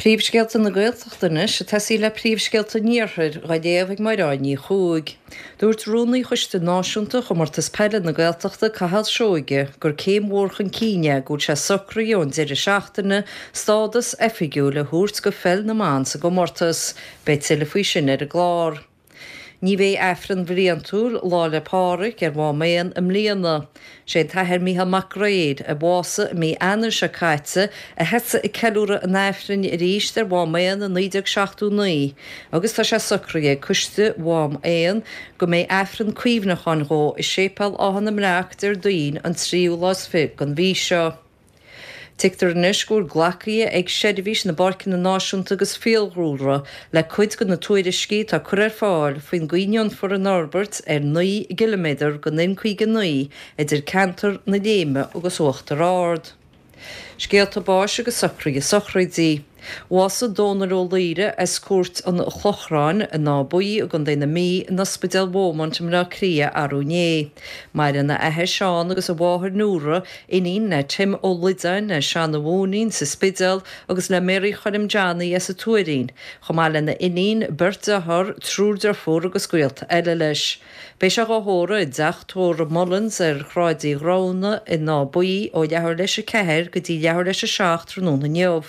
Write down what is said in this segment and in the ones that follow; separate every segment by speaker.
Speaker 1: Príomhscéalta na Gaeltachta anois, ag tosaí le príomhscéalta an Iarthair, dhá léamh ag Máireád Ní Chuaig. Dúirt Rúnaí Choiste Náisiúnta Chomórtas Peile na Gaeltachta, Cathal Seoige, gur céim mhór chun cinn é go bhfuil sé socraithe ón deireadh seachtaine stádas oifigiúil a thabhairt go pheil na mban sa gcomórtas. Beidh tuilleadh faoi sin ar an gclár. Ní bheidh Aifreann bhliantúil Lá 'le Pádhraic ar Mhám Éan i mbliana. Sé an tAthair Mícheál Mac Gréir, a bhásaigh i mí Eanáir seo caite, a thosaigh ag ceiliúradh an Aifrinn arís ar Mhám Éan i 1979 agus tá sé socraithe ag Coiste Mhám Éan go mbeidh Aifreann cuimhneacháin dhó i Séipéal Áth na mBreac Déardaoin an tríú lá is fi den mhí seo. Tuigtear anois go bhfuil glactha ag Seirbhís na bPáirceanna Náisiúnta agus Fiadhúlra le cuid de na tuairiscí atá curtha ar fáil faoin gcaoi a ndéanfar an fhorbairt ar 9 gciliméadar den N59 idir ceantar na Léime agus Uachtar Ard. Scéalta báis agus socruithe sochraidí. Bhásaigh Dónal Ó Laoire as Cúirt an Chlochráin in Áth Buí i gContae na Mí in Ospidéal Beaumont i mBleá Cliath arú inné. Maireann a athair Seán agus a mháthair Nóra, iníon le Tim Ó Loideáin as Seanadh Mhóinín sa Spidéal agus le Mary Choilm Johnny as an Tuairín, chomh maith lena iníon, beirt dearthár, triúr deirfiúr agus gaolta eile leis. Beidh sé dhá thórramh i dteach tórraimh Mullins ar Shráid Uí Ghramhna in Áth Buí ó leathuair leis a 4 go dtí leathuair leis a 7 tráthnóna inniu.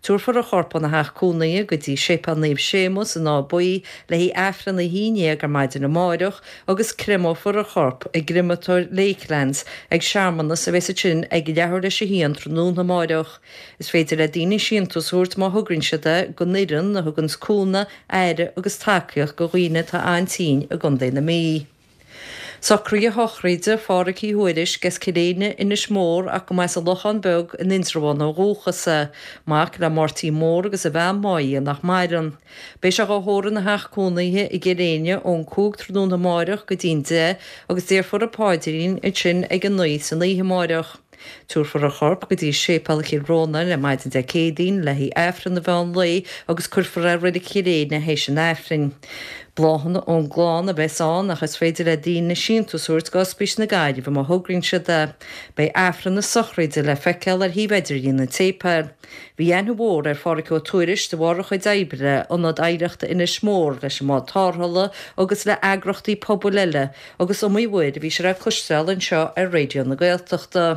Speaker 1: Tabharfar a chorp óna theach cónaithe go dtí Séipéal Naomh Séamus in Áth Buí le haghaidh Aifreann a 11 ar maidin amáireach agus créamófar a chorp i gcreamatóir Lakelands ag searmanas a bheas ansin ag leathuair leis a haon tráthnóna amáireach. Is féidir le daoine síntiús a thabhairt má thograíonn siad é don fhoireann a thuganns cúnamh, aire agus tacaíocht do dhaoine atá an-tinn i gContae na Mí. Socruithe sochraide Phádhraic Uí Thuairisg as Cill Éinne, Inis Mór ach go mba as an Lochán Beag in Indreabhán ó dhúchas é, mac le Máirtín Mór agus a bhean Máire nach maireann. Beidh sé dhá thórramh ina theach cónaithe i gCill Éinne ón 5 tráthnóna amáireach go dtí'n 10 agus déarfar an paidrín ansin ag a 9 san oíche amáireach. Tabharfar a chorp go dtí Séipéal Chill Rónáin ar maidin Dé Céadaoin le haghaidh Aifreann an mheán lae agus cuirfear é i Reilig Chill Éinne théis an Aifrinn. Bláthanna ón gclann a bheas ann ach is féidir le daoine síntiús a thabhairt go Ospís na Gaillimhe má thograíonn siad é. Beidh Aifreann na sochraide le feiceáil ar shuíomh idirlín an tséipéil. Bhí aithne mhór ar Phádhraic Ó Tuairisg de bharr a chuid oibre le Ionad Oidhreachta Inis Mór, leis an mBád Tarrthála agus le eagrachtaí pobail eile Agus iomaí uair a bhí sé le cloisteáil anseo ar Raidió na Gaeltachta.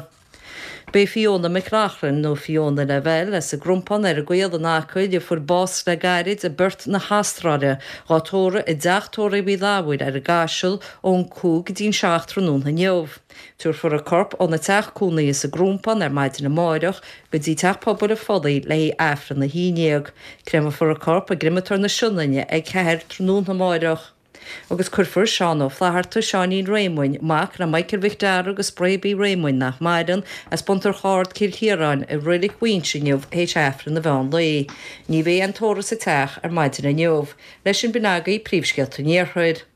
Speaker 1: Beidh Fiona McLaughlin, nó Fiona Lavelle, as an gCrompán ar an gCaol in Acaill, a fuair bás le gairid i bPerth na hAstráile, dhá tórramh i dteach tórraimh Uí Lamhaíl ar an gCaiseal ón 5 go dtí'n 7 tráthnóna inniu. Tabharfar a corp óna teach cónaithe sa gCrompán ar maidin amáireach go dtí Teach Pobail an Phollaigh le haghaidh Aifreann 11. Créamófar a corp i gCreamatóir na Sionainne ag 4 tráthnóna amáireach. Agus cuirfear Seán Ó Flatharta, Seáinín Réamoinn, mac le Michael Mhic Dara agus Bréabie Réamoinn, nach maireann, as Buntar Chárd, Cill Chiaráin, i Reilig Mhaínse inniu théis Aifreann an mheán lae. Ní bheidh aon tórramh sa teach ar maidin inniu. Leis sin b'in agaibh príomhscéalta an Iarthair.